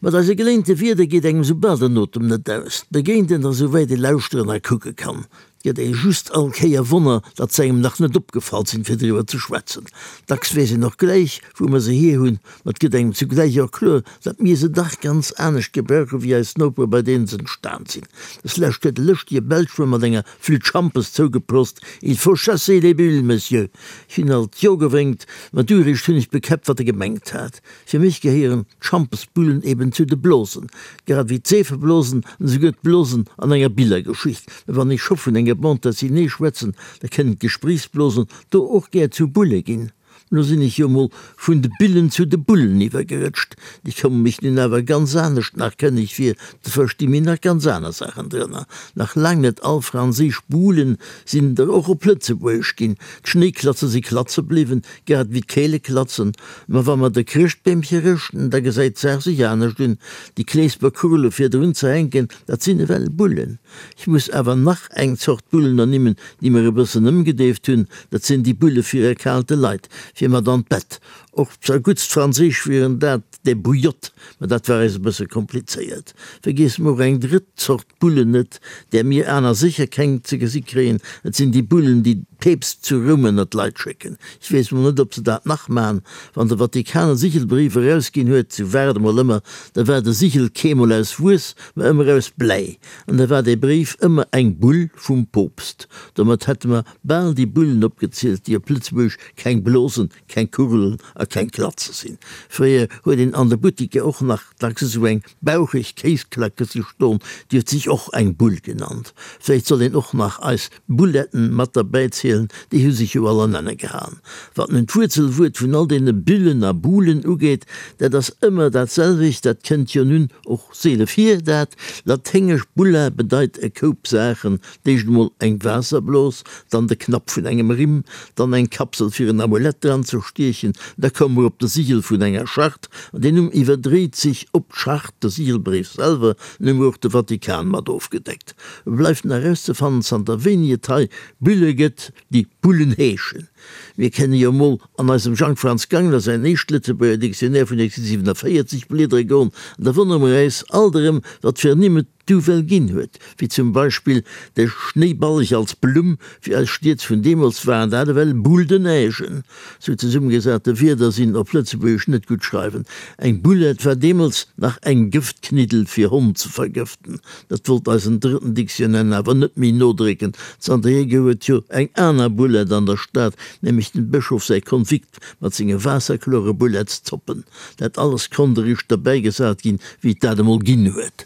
Mat eise geléinte Wierder geet engem soubal den Otem net aus. Et begéint een der souwäit ee lauschteren a kucke kann. Et gëtt ee just all Kéier Wonner, datt se engem nach net opgefall sinn, fir driwwer ze schwätzen. Dacks weess een och gläich, wou mer se hier hunn, ma et gëtt engem zugläich och kloer, datt mir se dach ganz anescht gebrauche wéi eis Nopere, bei deenen se entstan sinn. Des Lescht huet e lëschtege Belsch mer mat enger Flütt Schampes zougeprost, Il faut chasser les bulles, Monsieur! Ech hunn alt Jo gewénkt, ma du eréischt hunn ech bekäppt, wat e gemengt hat. Fir mech gehéieren d'Schampesbullen eben zu de Blosen, grad ewéi d'Seefeblosen an esouguer d'Blosen an enger Billergeschicht. Mä wann ech scho vun enger Bande dessinée schwätzen, da kënnen d'Gespréichsblosen do och gär zu Bulle ginn. Lo sinn ech jo mol vun de Billen zu de Bullen iwwergerëtscht. Déi komme mech nun awer ganz anescht nach kënneg vir, do versti mir nach ganz aner Saachen drënner. Nach laang net all franséisch Bulen sinn der och op Lëtzebuergesch ginn. D'Schnéiklatze si Klatze bliwwen, Grad ewéi d'Keele klatzen. Ma wa mer de Chrëschtbeemche rëschten, da gesäit d'Saach sech anescht un. Déi Kleesper Kurle fir drun ze hänken, dat sinn ewell Bullen. Ech muss awer nach eng Zort Bullen ernimmen, déi mer e bëssen ëmgedeeft hunn. Dat sinn déi Bulle fir erkaalte Leit, fir mat an d'Bett. Och zerguttst franséisch wieren dat des bouillottes, ma dat war eis e bësse komplizéiert. Vergiesse mer och eng drëtt Zort Bullen net, där mir aner sécher keng ze gesi kréien, et sinn déi Bullen, déi d'Peepst zu Roum ënner d'Leit schécken. Ech weess mol net, ob se dat nach man. Wann de Vatikan e Sichelbrief erausginn huet, sou war et emol ëmmer, da war de Sichel keemol aus Wuess, ma ëmmer aus Bläi, an da war dee Bréif ëmmer eng Bull vum Poopst. Domat hätte mer bal déi Bullen opgezielt, déi op Lëtzebuergesch keng Blosen, keng Kugelen a keng Klatze sinn. Fréier huet een an de Buttiker och nach dacks esou eng baucheg Kéisklacke si ston, déi huet sech och eng Bull genannt. Vläicht soll een och nach eis Bulletten mat derbäi zielen, déi hu sech jo all an Enne gehaen. Wat nun d'Wuerzelwuert vun all deene Bullen a Bulen ugeet, dat ass ëmmer dat selwecht, dat kënnt jo nun och seele vir, dat laténgesch bulla bedeit e Koup Saachen, D'éischt emol eng Waasserblos, dann de Knapp vun engem Rimm, dann eng Kapsel fir en Amulett dran ze stiechen, da koum mer op de Sigel vun enger Charte, an deen Numm iwwerdréit sech op d'Charte, de Sigelbréif selwer, nun hu mer och de Vatikan mat ofgedeckt. Et bleift nach erauszefannen, zanter wéini et hei Bulle gëtt, déi Bullen heeschen. Mir kenne jo emol an eisem Jang Franz Gangler säin éischt Lëtzebuerger Dictionnaire vun 1847 bliedere goen, an da wonnere mer äis alt erëm, wat fir Nimm et du well ginn huet, wéi zum Beispill de Schnéiballeg als Blumm, fir eis Stied vun deemools waren dat ewell Boules de neigen. Sou zesummegesate Wierder sinn op Lëtzebuergesch net gutt schreiwen. Eng Boulette war deemools nach eng Gëftkniddel fir Honn ze vergëften. Dat wollt eisen drëtten Dictionnaire awer net méi nodrécken. Zanterhier gouf et jo eng aner Boulette an der Stad, nämlech dem Bëschof säi Konvikt mat senge waasserklore Bouletteszoppen. Dat alles konnt eréischt derbäigesat ginn, wéi et dat emol ginn huet.